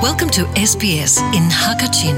Welcome to SBS in Hakachin.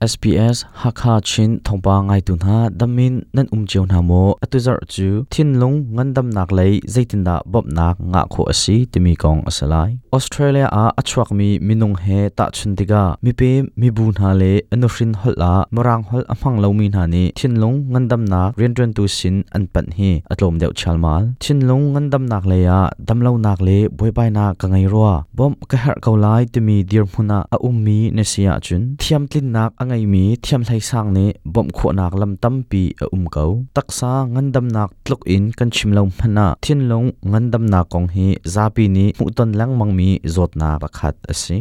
SBS Hakha Chin thawngpang ngaitu hna damin nan um cio hna maw? Atu zarh cu thinlung ngandamnak lei zeitindah bawmhnak ngah khawh a si timi kong a si lai. Australia ah a chuakmi minung he tahchun tikah mipem mibu hna le a nuhrin holh ah Mirang holh a hmang lomi hna nih thinlung ngandamnak rianṭuantu sin an panh hi a tlawm deuh chialmal. Thinlung ngandamnak lei ah damlonak le buaibainak ka ngei rua. Bawmh ka herh ko lai timi dirhmun ah a ummi na si ahcun thiamtlinnak a ngeimi thiamhleisang nih bawmh khawhnak lam tampi a um ko. Taksa ngandamnak tluk in kan chim lo hmanh ah thinlung ngandamnak kong hi zapi nih hmuhton lengmangmi zawtnak pakhat a si.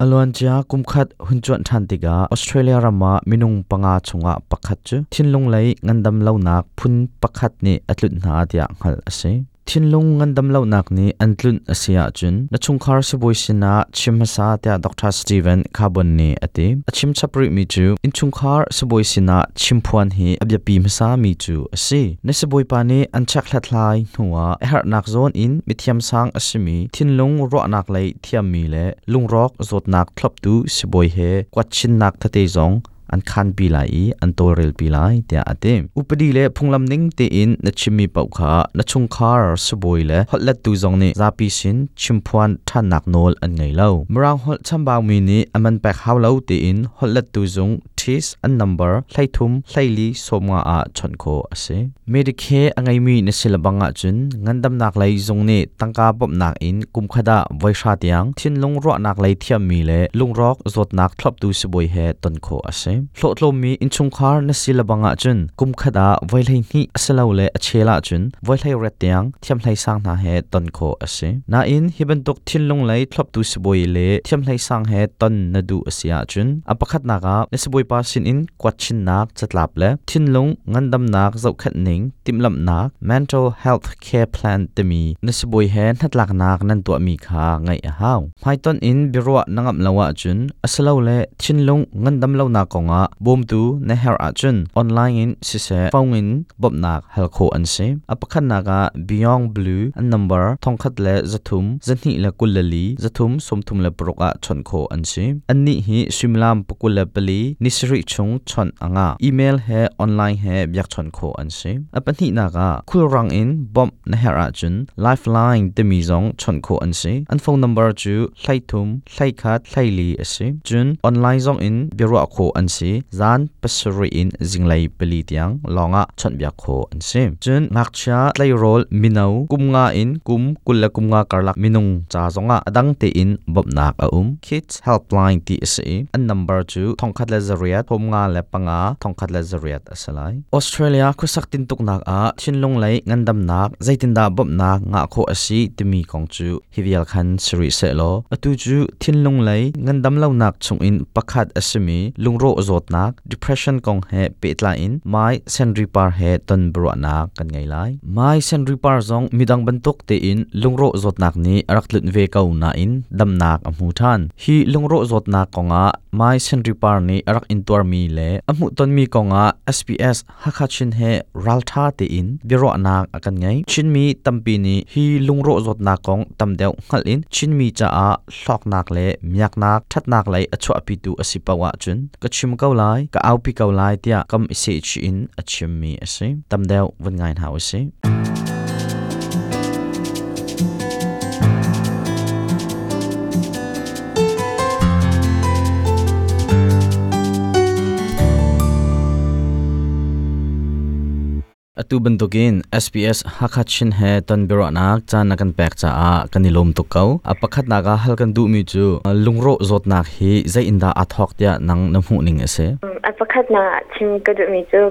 A luancia kumkhat hun cuanh ṭhan tikah Australia ram ah minung panga chungah pakhat cu thinlung lei ngandam lonak phun pakhat nih a tlunh hna tiah hngalh a si. Thinlung ngandam lonak nih an tlunh a si ahcun na chungkhar sibawi sinah chim hmasa tiah Dr. Steven Carbon nih a ti. A chim chap rihmi cu innchungkhar sibawi sinah chimphuan hi a biapi hmasami cu a si. Na sibawipa nih an check hlathlai hnuah a herhnak zawn in mithiamsang a simi thinlung ruahnak lei thiammi le lungrawk zawtnak thloptu sibawi he kuatchinnak tete zong an khanpi lai i an tawlrelpi lai tiah a ti. Upadi le phunglam ning tein na chimmi paoh kha na chungkhar sibawi le holhlettu zong nih zapi sin chimphuan ṭhannak nawl an ngei lo. Mirang holh chambaumi nih a man pek hau lo tiin holhlettu zung TIS an number 33 24 15 ah chawnh khawh a si. Medicare a ngeimi na si lebang ahcun ngandamnak lei zung nih tangka bawmhnak in kumkhat ah voihra tiang thinlung ruahnak lei thiammi le lungrawk zawtnak thloptu sibawi he ton khawh a si. Hlawhtlawmmi innchungkhar na si lebang ahcun kumkhat ah voi 12 asilole a chel ahcun voi 18 tiang thiamhlei sang hna he ton khawh a si. Nain hi bantuk thinlung lei thloptu sibawi le thiamhlei sang he ton na duh a si ahcun a pakhatnak ah na sibawipa sinin kuatchinnak catlap le thinlung ngandamnak zohkhenh ning timhlamhnak mental health care plan timi na sibawi he hnatlaknak nan tuahmi kha ngaih a hau. Hmaitonh in biaruah na ngamh lo ahcun asilole thinlung ngandam lonak kongah bawmtu na herh ahcun online in siseh phone in bawmhnak hal khawh an si. A pakhatnak ah Beyond Blue an number 1,300 224 336 ah chawnh khawh an si. Annih hi suimilam 24 ni sarih chung chawnh a ngah. Email he online he biakchawnh khawh an si. A pahnihnak ah khulrang in bawmh na herh ahcun Lifeline timi zong chawnh khawh an si. An phone number cu 33 21 24 a si. Cun online zong in biaruah khawh an si. Zan 7 in zinglei 4 tiang lawngah chawnhbiak khawh an si. Cun ngakchia tleirawl mino kum nga in kum 25 karlak minung ca zongah a dang tein bawmhnak a um. Kids Helpline ti a si i an number cu 1800 35 1100 a si lai. Australia khuasak tintuknak ah thinlung lei ngandamnak zeitindah bawmhnak ngah khawh a si timi kong cu hi vial khan si rih sehlaw atu cu thinlung lei ngandam lonak chungin pakhat a simi lungrawh zawtnak depression kong he pehtlai in Mai Senri Par he ton biaruahnak kan ngei lai. Mai Senri Par zong midang bantuk tein lungrawh zawtnak nih a rak tlunh ve ko nain damnak a hmu ṭhan. Hi lungrawh zawtnak kongah Mai Senri Par nih a rak intuarmi le a hmuhtonmi kongah SBS Hakha Chin he ralṭha tein biaruahnak a kan ngei. Chinmi tampi nih hi lungrawh zawtnak kong tam deuh hngalh in Chinmi caah hlawknak le miaknak ṭhatnak lei a chuahpitu a si paoh ahcun ka chim ko lai, ka aupi ko lai tiah kam i sehchih in a chimmi a si. Tam deuh vun ngai hna usih. Atu bantukin SBS Hakha Chin he ton biaruahnak caan na kan pek caah kan i lawm tuk ko. A pakhatnak ah hal kan duhmi cu lungrawh zawtnak hi zei in dah aa thawk tiah nang na hmuh ning a si? A pakhatnak chim ka duhmi cu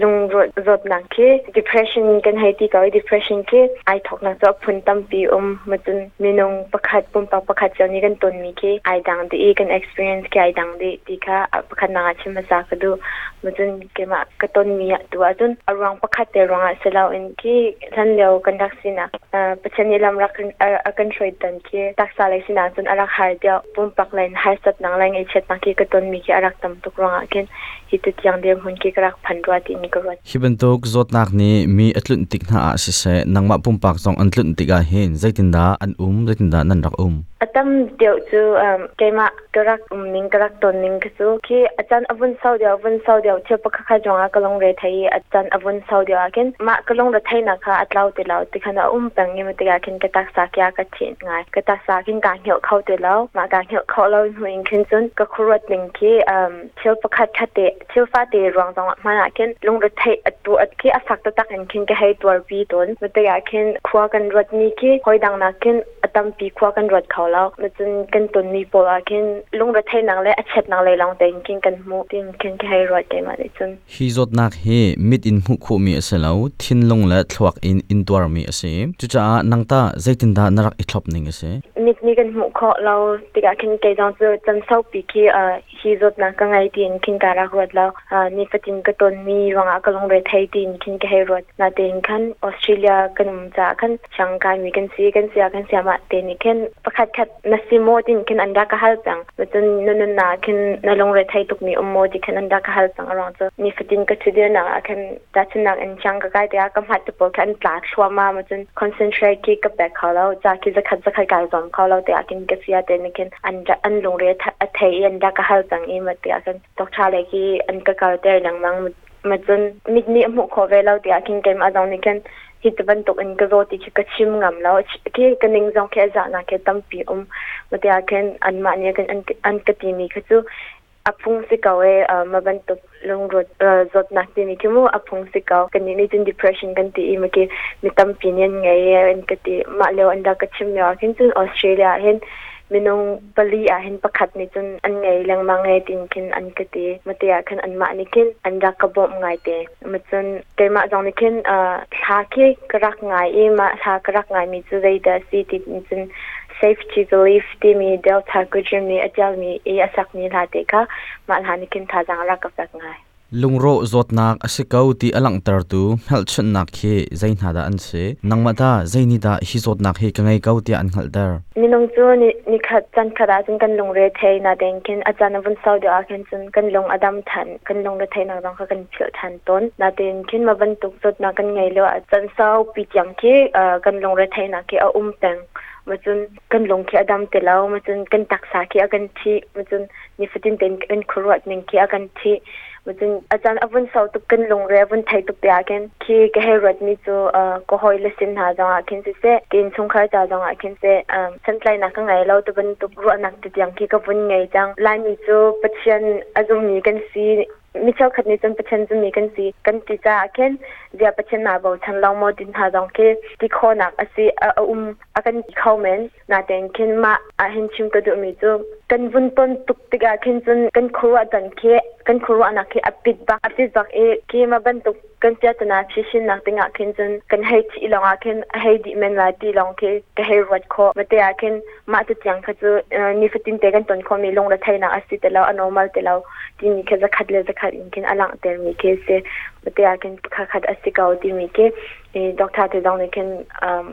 lungrawh zawtnak khi depression kan hei ti ko i depression khi ai thawknak cu a phun tampi um. Macun minung pakhat pumpak pakhat cio nih kan tonmi khi ai dang dih i kan experience khi ai dang dih ti kha a pakhatnak ah chim hmasa ka duh. Macun keimah ka tonmi tu ahcun a ruang pakhat Pakhat te ruangah si loin khi hlan lio kan rak sinak Pathian nih lam rak a kan hruai tan khi taksa lei sinak cun a rak har deuh. Pumpak lei in harsatnak le ngaihchiatnak khi ka tonmi khi a rak tam tuk ruangah khin hi tu tiang dirhmun khi ka rak phan rua tiin ka ruat. Hi bantuk zawtnak nih mi a tlunh tik hna ah siseh, nangmah pumpak zong an tlunh tikah hin zeitindah an um, zeitindah nan rak um? A tam deuh cu keimah ka rak um ning ka rak ton ning khi cu khi a caan a vun sau deuh vun sau deuh thil pakhat khat ruangah ka lungre thei i a caan a vun sau deuh ah khin mah ka lungre theihnak kha a tlau ti lo ti khan a um peng i tikah khin ka taksa kia ka thih ngai. Ka taksa khin kaa hngilh kho ti lo. Mah kaa hngilh kho lo hnu in khin cun ka khuaruat ning khi thil pakhat khat te thil fate ruang zong ah hmanh ah khin lungretheih a tu khi a fak taktak in khin ka hei tuarpi tawn. Tikah khin khua kan ruat mi khi hoi dang nak khin a tampi khua kan ruat kho lo. Cun kan ton mi pawl ah khin lungretheihnak le a chiatnak lei lawng tein khin kan hmuh tin khin ka hei ruat keimah nih cun. Hi zawtnak hi mit in hmuh khawhmi a si lo, thinlung le thluak in intuarmi a si. Cucaah nang tah zeitindah na rak i thlop ning a si? Mit nih kan hmuh khawh lo tikah khin kei zong cu chan saupi khi hi zawtnak ka ngei tiin khin ka rak ruat lo. Nifatin ka tonmi ruangah ka lungre thei tiin khin ka hei ruat. Natein khan Australia kan um caah khan siang kaimi kan si, kan sia kan siamah te nih khin pakhat khat na si maw tiin khin an rak ka hal cang. Cun na nunnak khin na lungre thei tukmi um maw ti khin an rak ka hal cang. A ruang cu nifatin ka ṭhudirnak ah khin tahchunhnak in siang ka kai tikah ka hmat te pawl kha an tla thluahmah ma cun concentrate khi ka pek kho lo. Ca khi zakhat zakhat kai zuam kho lo tiah khin ka sia te nih khin an an lungre a thei i an rak ka hal cang i ma tiah khin doctor le khi an ka kalter lengmang. Ma cun mit nih a hmuh khawh ve lo tiah khin keimah zong nih khin hi ti bantuk in ka zaw ti khi ka chim ngam lo. Khi ka ning zong khi a zahnak khi tampi um. Ma tiah khin anmah nih an ka timi kha cu a phung si ko e, ma bantuk lungruat zawtnak timi khi mu a phung si ko. Kannih nih cun depression kan ti i ma khi mi tampi nih an ngei an ka ti. Mah lio an rak ka chim lio ah khin cun Australia ah hin minung pali ah hin pakhat nih cun an ngei lengmang e tin khin an ka ti. Ma te ah khin anmah nih khin an rak ka bawmh ngai te. Ma cun keimah zong nih khin thla khi ka rak ngai i mah thla ka rak ngai mi cu zeidah si ti cun Safety Belief timi Delta Goodrem nih a ṭialmi i a sakmi hla te kha mah hla nih khin thazaang a rak ka pek ngai. Lungrawh zawtnak a si ko ti a langhtertu hmelchunhnak khi zei hna dah an si? Nangmah tah zei nih dah hi zawtnak hi ka ngei ko tiah an hngalhter? Minung cu nikhat caan khat ahcun kan lungre thei natein khin a caan a vun sau deuh ahkhin cun kan lung a dam ṭhan, kan lungre theihnak zong kha kan philh ṭhan tawn. Natein khin mah bantuk zawtnak kan ngei lio ah caan saupi tiang khi kan lungre theihnak khi a um peng. Macun kan lung khi a dam ti lo, macun kan taksa khi a kan thih, macun nifatin tein kan khuaruat ning khi a kan thih. Macun a caan a vun sau tuk, kan lungre a vun thei tuk te ah khin khi ka hei ruat mi cu ka hawi le sin hna zong ah khin siseh, ka innchungkhar ca zong ah khin seh, santlainak ka ngei lo ti bantuk ruahnak te tiang khi ka vun ngei cang. Laimi cu Pathian a zummi kan si. Mi cheukhat nih cun Pathian zummi kan si kan ti caah khin zia Pathian naa bochan lo maw ti hna zong khi ti khawhnak a si a um a kan ti kho men. Natein khin mah ahhin chim ka duhmi cu kan vun ton tuk tikah khin cun kan khuaruah dan khi kan khuaruahnak khi a pit bak a pit bak i khi ma bantuk kan piatana phishinnak dingah khin cun kan hei thih lawngah khin a hei dih men lai ti lawng khi ka hei ruat khawh. Mate ah khin mah te tiang kha cu nifatin te kan ton khawhmi lungretheihnak a si ti lo, a normal ti lo timi khi zakhat le zakhat in khin a langhtermi khi a si. Mate ah khin khat a si ko timi khi doctor te zong nih khin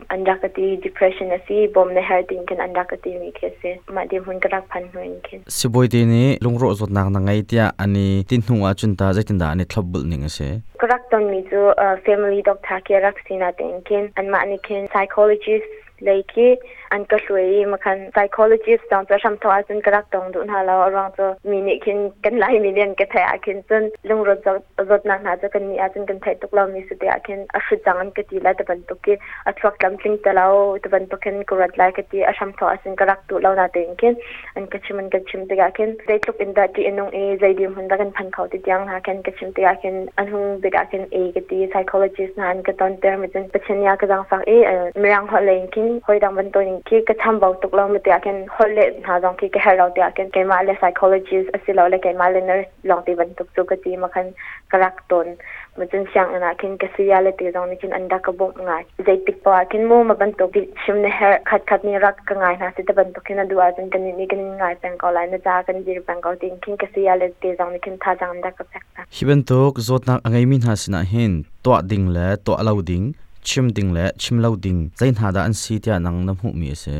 an rak ka ti, depression a si, bawm na herh tiin khin an rak ka timi khi a si. Mah dirhmun ka rak phan hnu in khin. Sibawi te nih lungrawh zawtnak na ngei tiah an i ti hnu ahcun tah zeitindah an i thlopbulh ning a si? Ka rak tonmi cu family doctor khi a rak si natein khin anmah nih khin psychologist lei khi an ka hruai i makhan psychologist zong cu hramthawk ahcun ka rak tong duh hna lo. A ruang cu mi nih khin kan Laimi nih an ka theih ahkhin cun lungrawt zawtnak hna cu kan nih ahcun kan theih tuk lomi si te ahkhin a hrut cang an ka ti lai ti bantuk khi a thluak tlamtling te lo ti bantuk khin ka ruat lai ka ti. A hramthawk ahcun ka rak duh lo natein khin an ka chim an ka chim tikah khin zeitluk in dah ṭih a nung i zei dirhmun dah kan phan kho ti tiang hna khin ka chim tikah khin an hung bik ah khin e ka ti. Psychologist hna an ka tonter mi cun Pathian nih a ka zaangfak i mirang holh lei in khin hawi dang bantukin khi ka chambau tuk lo mi tiah khin holh leh hna zong khi ka herh lo tiah khin keimah le psychologist asilole keimah le nurse lawng ti bantuk cu ka ti ma khan ka rak ton. Ma cun sianginn ah khin ka saya le te zong nih khin an rak ka bawmh ngai. Zeitik poah ah khin mu ma bantuk chim na herh khat khat nih rak ka ngai hna si te bantuk khin a duh ahcun kan nih kan in ngai peng ko lai na ca kan dir peng ko tiin khin ka saya le te zong nih khin thazaang an rak ka pek hna. Hi bantuk zawtnak a ngeimi hna sinah hin tuah ding le tuah lo ding, chim ding le chim lo ding zei hna dah an si tiah nang na hmuhmi a si?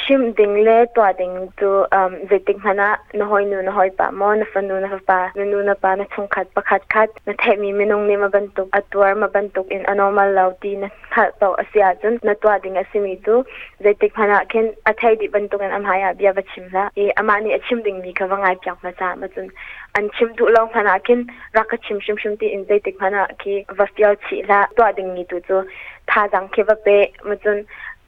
Chimh ding le tuah ding cu zeitik hmanh ah na hawinu na hawipa maw na fanu na fapa na nu na pa na chungkhat pakhat khat na theihmi minung nih ma bantuk a tuar ma bantuk in a normal lo ti na hngalh paoh a si ahcun na tuah ding a simi cu zeitik hmanh ah khin a thei dih bantuk in a hmai ah bia va chim hlah i amah nih a chim dingmi kha va ngai piak hmasa ma cun an chim duh lo hmanh ah khin rak ka chim hrimhrim ti in zeitik hmanh ah khi va fial chih hlah. Tuah dingmi tu cu thazaang khi va pe ma cun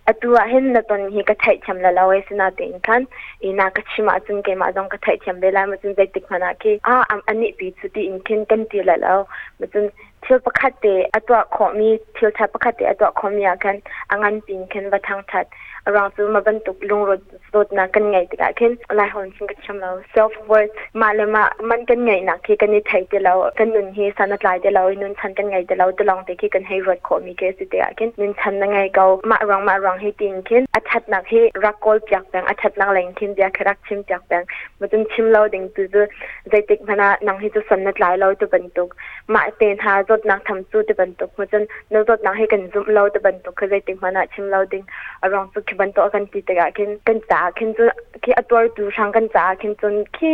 atu ah hin na ton hi ka theihthiam la lo e sinatein khan i na ka chim ahcun keimah zong ka theihthiam ve lai ma cun zeitik hmanh ah khi a anih pi cu tiin khin kan ti la lo ma cun thil pakhat te a tuah khawhmi thil tha pakhat te a tuah khawhmi ah khan a ngan pin khin va thangthat arang cu ma bantuk lungrawt dawtnak kan ngeih tikah khin lai hon cun ka thiam lo self worth mah le mah man kan ngeihnak khi kan i thei ti lo kan nun hi san a tlai ti lo i nun chan kan ngei ti lo ti lawng te khi kan hei ruat khawh mi khi si tikah khin nun chan na ngei ko mah ruang mah ruang hi tiin khin a thatnak hi rak kawl piak peng a thatnak leng khin bia khi rak chim piak peng ma cun chim lo ding tu cu zeitik hmanh ah nang hi cu san na tlai lo tu bantuk mah te hna zawtnak tham cu ti bantuk ma cun na zawtnak hi kan zumh lo ti bantuk kha zeitik hmanh ah chim lo ding a ruang cu khi bantuk kan ti tikah khin kan caah khin cun khi a tuartu hrang kan caah khin cun khi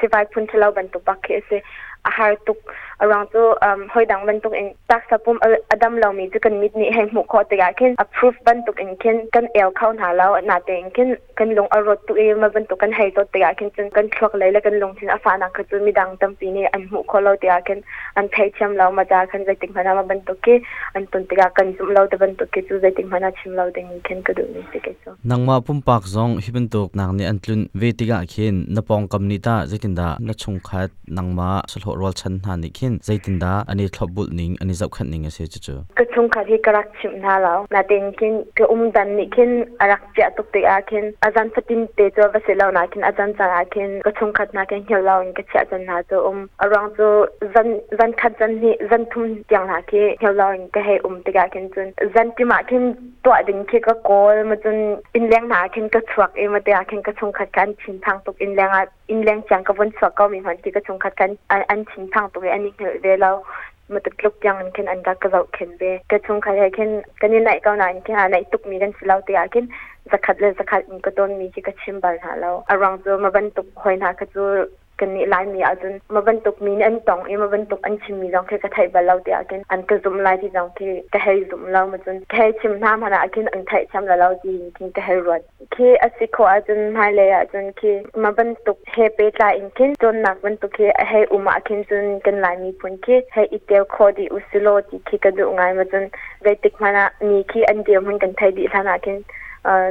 sivai phun ṭhalo bantuk bak khi a si a har tuk a ruang cu hoi dang bantuk in taksa pum a dam lomi cu kan mit nih hei hmuh khawh tikah khin a proof bantuk in khin kan el kho hna lo na tein khin kan lung a rawt tuk i ma bantuk kan hei zawt tikah khin cun kan thluak lei le kan lungthin a fahnak kha cu midang tampi nih an hmuh khawh lo tikah khin an theithiam lo ma ca khan zeitik hmanh ah ma bantuk khi an ton tikah kan zumh lo te bantuk khi cu zeitik hmanh ah chim lo ding khin ka duh mi si kei cu. Nangmah pumpak zong hi bantuk nak nih an tlun ve tikah khin na pawngkam nih tah zeitindah na chungkhat nangmah sahlawh rualchan hna nih khin zeitindah an i thlopbulh ning an i zohkhenh ning a si cucu? Ka chungkhat hi ka rak chimh hna lo. Natein khin ka um dan nih khin a rak chiah tuk tikah khin a zan fatin te cu va si lo na khin a zan caan ah khin ka chungkhat hna khin hngilh lo in ka chiah caan hna cu um. A ruang cu zan zan khat zan hnih zan thum tiang hna khi hngilh lo in ka hei um tikah khin cun zan tim ah khin tuah ding khi ka kawl ma cun innleng hna ah khin ka chuak i ma te ah khin ka chungkhat kha an thinphang tuk innleng ah innleng tiang ka vun chuak ko mi hmanh khi ka chungkhat kha an thinphang tuk i an i hngilh ve lo ma tluk tiang in khin an rak ka zohkhenh ve ka chungkhat he khin kan i naih ko nain khin a naih tuk mi kan si lo tikah khin zakhat le zakhat in ka tawn mi khi ka chim bal hna lo a ruang cu ma bantuk hoi hna kha cu kannih Laimi ahcun ma bantuk mi nih an tong i ma bantuk an chimmi zong khi ka theih bal lo tiah khin an ka zumh lai ti zong khi ka hei zumh lo ma cun ka hei chim hna hmanh ah khin an theihthiam la lo ti khin ka hei ruat. Khi a si khawh ahcun hmailei ahcun khi ma bantuk he pehtlai in khin cawnnak bantuk khi a hei um ah khin cun kan Lai miphun khi hei i tel khawh dih usilaw ti khi ka duh ngai ma cun zeitik hmanh ah mi khi an dirhmun kan thei dih hlan ah khin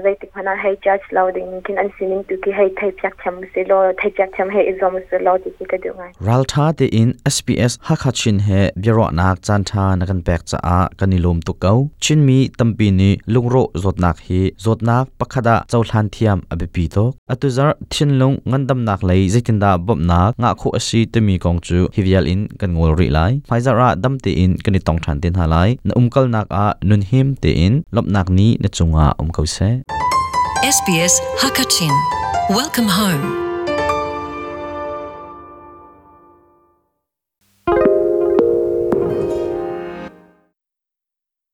zeitik hmanh ah hei judge lo ding khin an sining tu khi hei thei piak thiam si law thei piak thiam hei i zuam si law ti khi ka duh ngai. Ralṭha tein SPS Hakha Chin he biaruahnak caanṭha na kan pek caah kan i lawm tuk ko. Chinmi tampi nih lungrawh zawtnak hi zawtnak pakhat ah cohlan thiam a biapi tuk. Atu zarh thinlung ngandamnak lei zeitindah bawmhnak ngah khawh a si timi kong cu hi vial in kan ngol rih lai. Hmaizarh ah dam tein kan i tong ṭhan te hna lai. Na umkalnak ah nunhim tein lawmhnak ni na cungah um ko seh. SBS Hakachin. Welcome home.